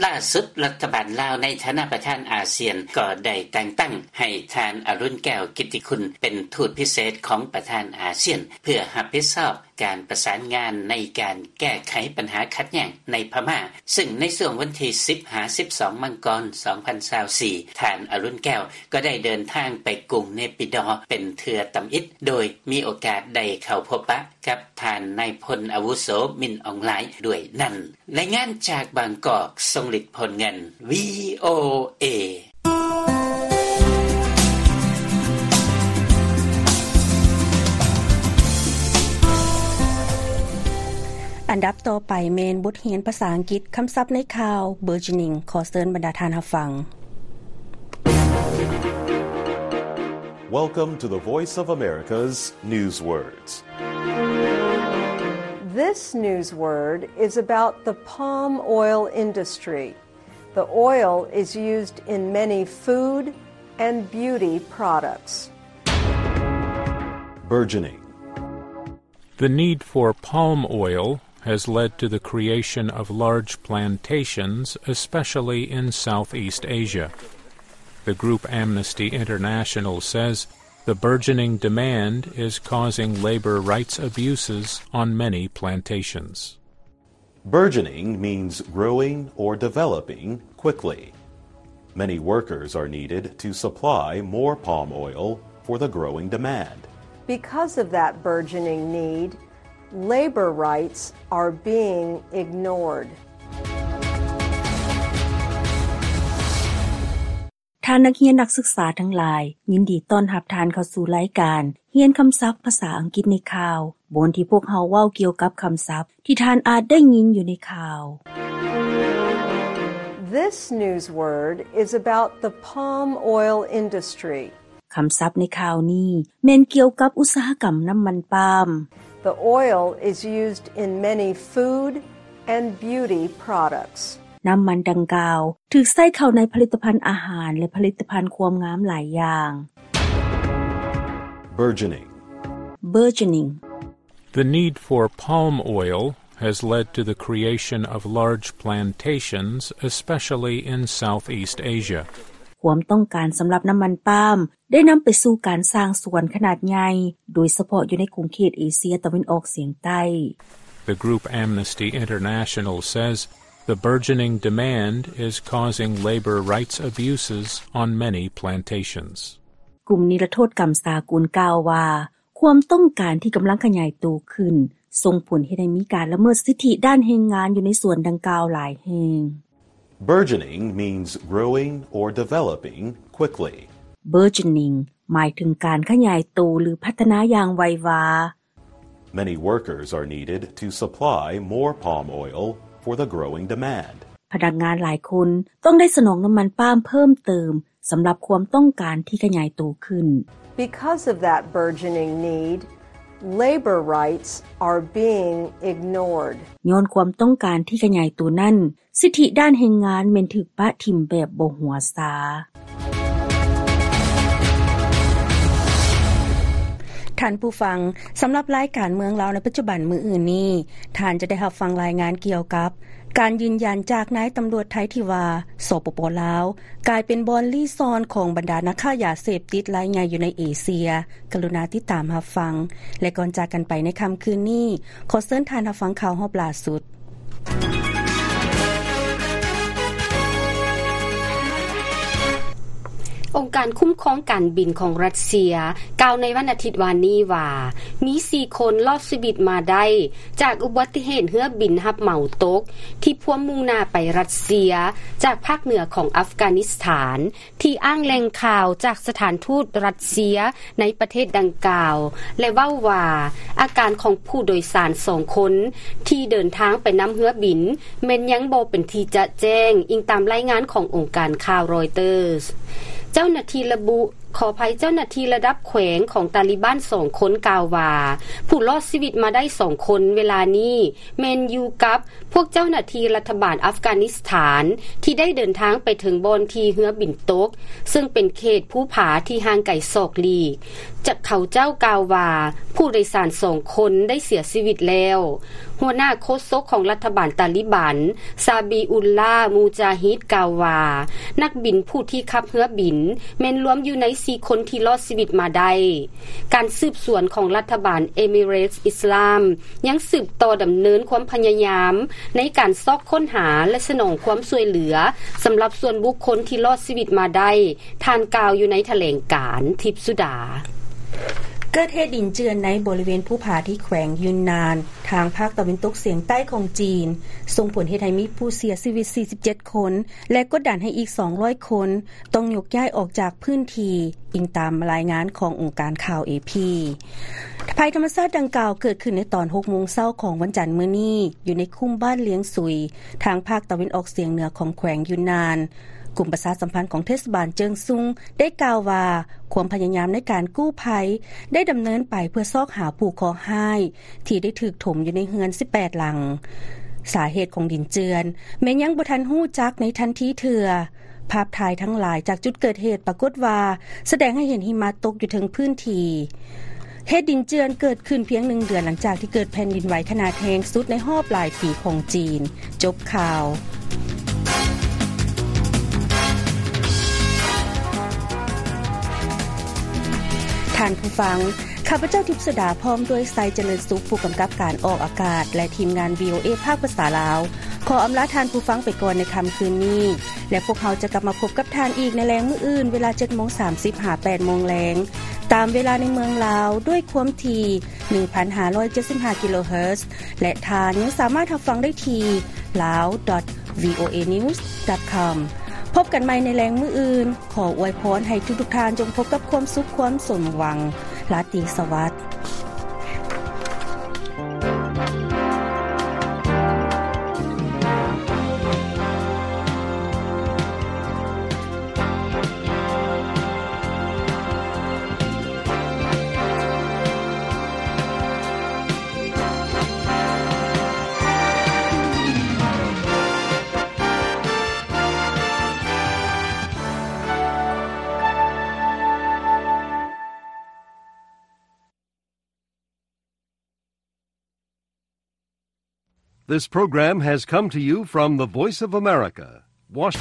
ລ່າສຸດລັດຖະບານລາວໃນຖານະປະທານອາຊຽນກໍໄດ້ແຕ່ງຕັ້ງໃຫ້ທ່ານ ອະລຸນ ແກ້ວກິດຕິຄຸນ ເປັນທູດພິເສດຂອງປະທານອາຊຽນ ເພື່ອຮັບຜິດຊອບການປະສານງານໃນການແກ້ໄຂບັນຫາຂັດແຍ່ງໃນພະມ້າ, ຊຶ່ງໃນຊ່ວງວັນທີສິບຫາສິບສອງ ມັງກອນ ສອງພັນຊາວສີ່ ທ່ານ ອະລຸນ ແກ້ວ ກໍໄດ້ເດີນທາງໄປກຸງເນປິດໍ ເປັນເທື່ອທຳອິດ ໂດຍມີໂອກາດໄດ້ເຂົ້າພົບປະກັບທ່ານນາຍພົນອາວຸໂສ ມິນ ອອງ ລາຍ ດ້ວຍນັ້ນ. ລາຍງານຈາກບາງກອກ ຊົງລິດ ໂພນເງິນ ວີໂອເອ. ອັນດັບຕໍ່ໄປແມ່ນບົດຮຽນພາສາອັງກິດ, ຄຳສັບໃນຂ່າວ burgeoning. ຂໍເຊີນບັນດາທ່ານຮັບຟັງ. Welcome to the Voice of America's Newswords. This news word is about the palm oil industry. The oil is used in many food and beauty products. Burgeoning. The need for palm oil has led to the creation of large plantations, especially in Southeast Asia. The group Amnesty International says the burgeoning demand is causing labor rights abuses on many plantations. Burgeoning means growing or developing quickly. Many workers are needed to supply more palm oil for the growing demand. Because of that burgeoning need, labor rights are being ignored. ທ່ານນັກຮຽນນັກສຶກສາທັງຫຼາຍ, ຍິນດີຕ້ອນຮັບທ່ານເຂົ້າສູ່ລາຍການຮຽນຄຳສັບພາສາອັງກິດໃນຂ່າວ, ບ່ອນທີ່ພວກເຮົາເວົ້າກ່ຽວກັບຄຳສັບທີ່ທ່ານອາດໄດ້ຍິນຢູ່ໃນຂ່າວ. This news word is about the palm oil industry. ຄຳສັບໃນຂ່າວນີ້ແມ່ນກ່ຽວກັບອຸດສາຫະກຳນ້ຳມັນປາມ. The oil is used in many food and beauty products. ນ້ຳມັນດັ່ງກ່າວຖືກໃຊ້ເຂົ້າໃນຜະລິດຕະພັນອາຫານ ແລະ ຜະລິດຕະພັນຄວາມງາມຫຼາຍຢ່າງ. Burgeoning. Burgeoning. The need for palm oil has led to the creation of large plantations, especially in Southeast Asia. ຄວາມຕ້ອງການສຳລັບນ້ຳມັນປາມ ໄດ້ນຳໄປສູ່ການສ້າງສວນຂະໜາດໃຫຍ່, ໂດຍສະເພາະຢູ່ໃນຂົງເຂດເອເຊຍຕາເວັນອອກສຽງໃຕ້. The group Amnesty International says the burgeoning demand is causing labor rights abuses on many plantations. ກຸ່ມນິລະໂທດກຳສາກົນກ່າວວ່າ, ຄວາມຕ້ອງການທີ່ກຳລັງຂະຫຍາຍໂຕຂຶ້ນ ສົ່ງຜົນເຮັດໃຫ້ມີການລະເມີດສິດທິດ້ານແຮງງານຢູ່ໃນສວນດັ່ງກ່າວຫຼາຍແຫ່ງ. Burgeoning means growing or developing quickly. Burgeoning ໝາຍເຖິງການຂະຫຍາຍໂຕ ຫຼື ພັດທະນາຢ່າງໄວວາ. Many workers are needed to supply more palm oil for the growing demand. ພະນັກງານຫຼາຍຄົນຕ້ອງໄດ້ສະໜອງນ້ຳມັນປາມເພີ່ມເຕີມ ສຳລັບຄວາມຕ້ອງການທີ່ຂະຫຍາຍໂຕຂຶ້ນ. Because of that burgeoning need, labor rights are being ignored. ຍ້ອນຄວາມຕ້ອງການທີ່ຂະຫຍາຍໂຕນັ້ນ, ສິດທິດ້ານແຮງງານແມ່ນຖືກປະຖິ້ມແບບບໍ່ຫົວຊາ. ທ່ານຜູ້ຟັງ, ສຳລັບລາຍການເມືອງລາວໃນປັດຈຸບັນມື້ອື່ນນີ້, ທ່ານຈະໄດ້ຮັບຟັງລາຍງານກ່ຽວກັບ ການຢືນຢັນຈາກນາຍຕຳຫຼວດໄທທີ່ວ່າ ສປປ ລາວ ກາຍເປັນບ່ອນລີ້ຊ່ອນຂອງບັນດານັກຄ້າຢາເສບຕິດລາຍໃຫຍ່ຢູ່ໃນເອເຊຍ. ກະລຸນາຕິດຕາມຮັບຟັງ ແລະ ກ່ອນຈາກກັນໄປໃນຄ່ຳຄືນນີ້, ຂໍເຊີນທ່ານຮັບຟັງຂ່າວຮອບລ່າສຸດ. ອົງການຄຸ້ມຄອງການບິນຂອງຣັດເຊຍ ກ່າວໃນວັນອາທິດວານນີ້ວ່າ ມີສີ່ຄົນລອດຊີວິດມາໄດ້ ຈາກອຸບັດຕິເຫດເຮືອບິນຮັບເໝົາຕົກ ທີ່ພວມມຸ່ງໜ້າໄປຣັດເຊຍ ຈາກພາກເໜືອຂອງອັຟການິສຖານ ທີ່ອ້າງແຫຼ່ງຂ່າວຈາກສະຖານທູດຣັດເຊຍໃນປະເທດດັ່ງກ່າວ ແລະ ເວົ້າວ່າ ອາການຂອງຜູ້ໂດຍສານສອງຄົນ ທີ່ເດີນທາງໄປນຳເຮືອບິນ ແມ່ນຍັງບໍ່ເປັນທີ່ຈະແຈ້ງ, ອີງຕາມລາຍງານຂອງອົງການຂ່າວຣອຍເຕີສ. ເຈົ້າໜ້າທີ່ລະບຸ, ຂໍອະໄພ, ເຈົ້າໜ້າທີ່ລະດັບແຂວງຂອງຕາລີບານສອງຄົນກ່າວວ່າ ຜູ້ລອດຊີວິດມາໄດ້ສອງຄົນເວລານີ້ ແມ່ນຢູ່ກັບພວກເຈົ້າໜ້າທີ່ລັດຖະບານອັຟການິສຖານ ທີ່ໄດ້ເດີນທາງໄປເຖິງບ່ອນທີ່ເຮືອບິນຕົກ, ເຊິ່ງເປັນເຂດພູຜາທີ່ຫ່າງໄກສອກຫຼີກ. ຈາກເຂົາເຈົ້າກ່າວວ່າ ຜູ້ໂດຍສານສອງຄົນໄດ້ເສຍຊີວິດແລ້ວ. ຫົວໜ້າໂຄສົກຂອງລັດຖະບານຕາລີບານ ຊາບີອຸລລາ ມູຈາຮິດ ກ່າວວ່າ ນັກບິນຜູ້ທີ່ຂັບເຮືອບິນ ແມ່ນລວມຢູ່ໃນສີ່ຄົນທີ່ລອດຊີວິດມາໄດ້. ການສືບສວນຂອງລັດຖະບານເອມິເຣດອິດສະລາມ ຍັງສືບຕໍ່ດຳເນີນຄວາມພະຍາຍາມໃນການຊອກຄົ້ນຫາ ແລະ ສະໜອງຄວາມຊ່ວຍເຫຼືອ ສຳລັບສ່ວນບຸກຄົນທີ່ລອດຊີວິດມາໄດ້, ທ່ານກ່າວຢູ່ໃນຖະແຫຼງການ. ທິບສຸດາ. ເກີດເຫດດິນເຈື່ອນໃນບໍລິເວນພູຜາທີ່ແຂວງຢຸນນານ ທາງພາກຕາເວັນຕົກສຽງໃຕ້ຂອງຈີນ, ສົ່ງຜົນເຮັດໃຫ້ມີຜູ້ເສຍຊີວິດສີ່ສິບເຈັດຄົນ ແລະ ກົດດັນໃຫ້ອີກສອງຮ້ອຍຄົນ ຕ້ອງຍົກຍ້າຍອອກຈາກພື້ນທີ່, ອີງຕາມລາຍງານຂອງອົງການຂ່າວເອພີ. ໄພທຳມະຊາດດັ່ງກ່າວເກີດຂຶ້ນໃນຕອນຫົກໂມງເຊົ້າຂອງວັນຈັນມື້ນີ້ ຢູ່ໃນຄຸ້ມບ້ານລຽງຊຸຍ ທາງພາກຕາເວັນອອກສຽງເໜືອຂອງແຂວງຢຸນນານ. ກຸ່ມປະຊາສຳພັນຂອງເທດສະບານເຈີງຊຸງ ໄດ້ກ່າວວ່າ ຄວາມພະຍາຍາມໃນການກູ້ໄພ ໄດ້ດຳເນີນໄປເພື່ອຊອກຫາຜູ້ເຄາະຮ້າຍ ທີ່ໄດ້ຖືກຖົມຢູ່ໃນເຮືອນສິບແປດຫຼັງ. ສາເຫດຂອງດິນເຈື່ອນແມ່ນຍັງບໍ່ທັນຮູ້ຈັກໃນທັນທີເທື່ອ. ພາບຖ່າຍທັງຫຼາຍຈາກຈຸດເກີດເຫດປາກົດວ່າ ສະແດງໃຫ້ເຫັນຫິມະຕົກຢູ່ເທິງພື້ນທີ່. ເຫດດິນເຈື່ອນເກີດຂຶ້ນພຽງໜຶ່ງເດືອນຫຼັງຈາກທີ່ເກີດແຜ່ນດິນໄຫວຂະໜາດແຮງສຸດໃນຮອບຫຼາຍປີຂອງຈີນ. ຈົບຂ່າວ. ທ່ານຜູ້ຟັງ, ຂ້າພະເຈົ້າ ທິບສຸດາ ພ້ອມດ້ວຍ ໄຊຈະເລີນສຸກ ຜູ້ກຳກັບການອອກອາກາດ ແລະ ທີມງານ ວີໂອເອ ພາກພາສາລາວ ຂໍອຳລາທ່ານຜູ້ຟັງໄປກ່ອນໃນຄ່ຳຄືນນີ້ ແລະ ພວກເຮົາຈະກັບມາພົບກັບທ່ານອີກໃນແລງມື້ອື່ນ ເວລາເຈັດໂມງສາມສິບຫາແປດໂມງແລງ ຕາມເວລາໃນເມືອງລາວ ດ້ວຍຄວາມຖີ່ ໜຶ່ງພັນຫ້າຮ້ອຍເຈັດສິບຫ້າ ກິໂລເຮີດ ແລະ ທ່ານຍັງສາມາດຮັບຟັງໄດ້ທີ່ lao dot voanews dot com. ພົບກັນໃໝ່ໃນແລງມື້ອື່ນ. ຂໍອວຍພອນໃຫ້ທຸກໆທ່ານຈົ່ງພົບກັບຄວາມສຸກຄວາມສົມຫວັງ. ລາຕີສະຫວັດ. This program has come to you from the Voice of America, Washington.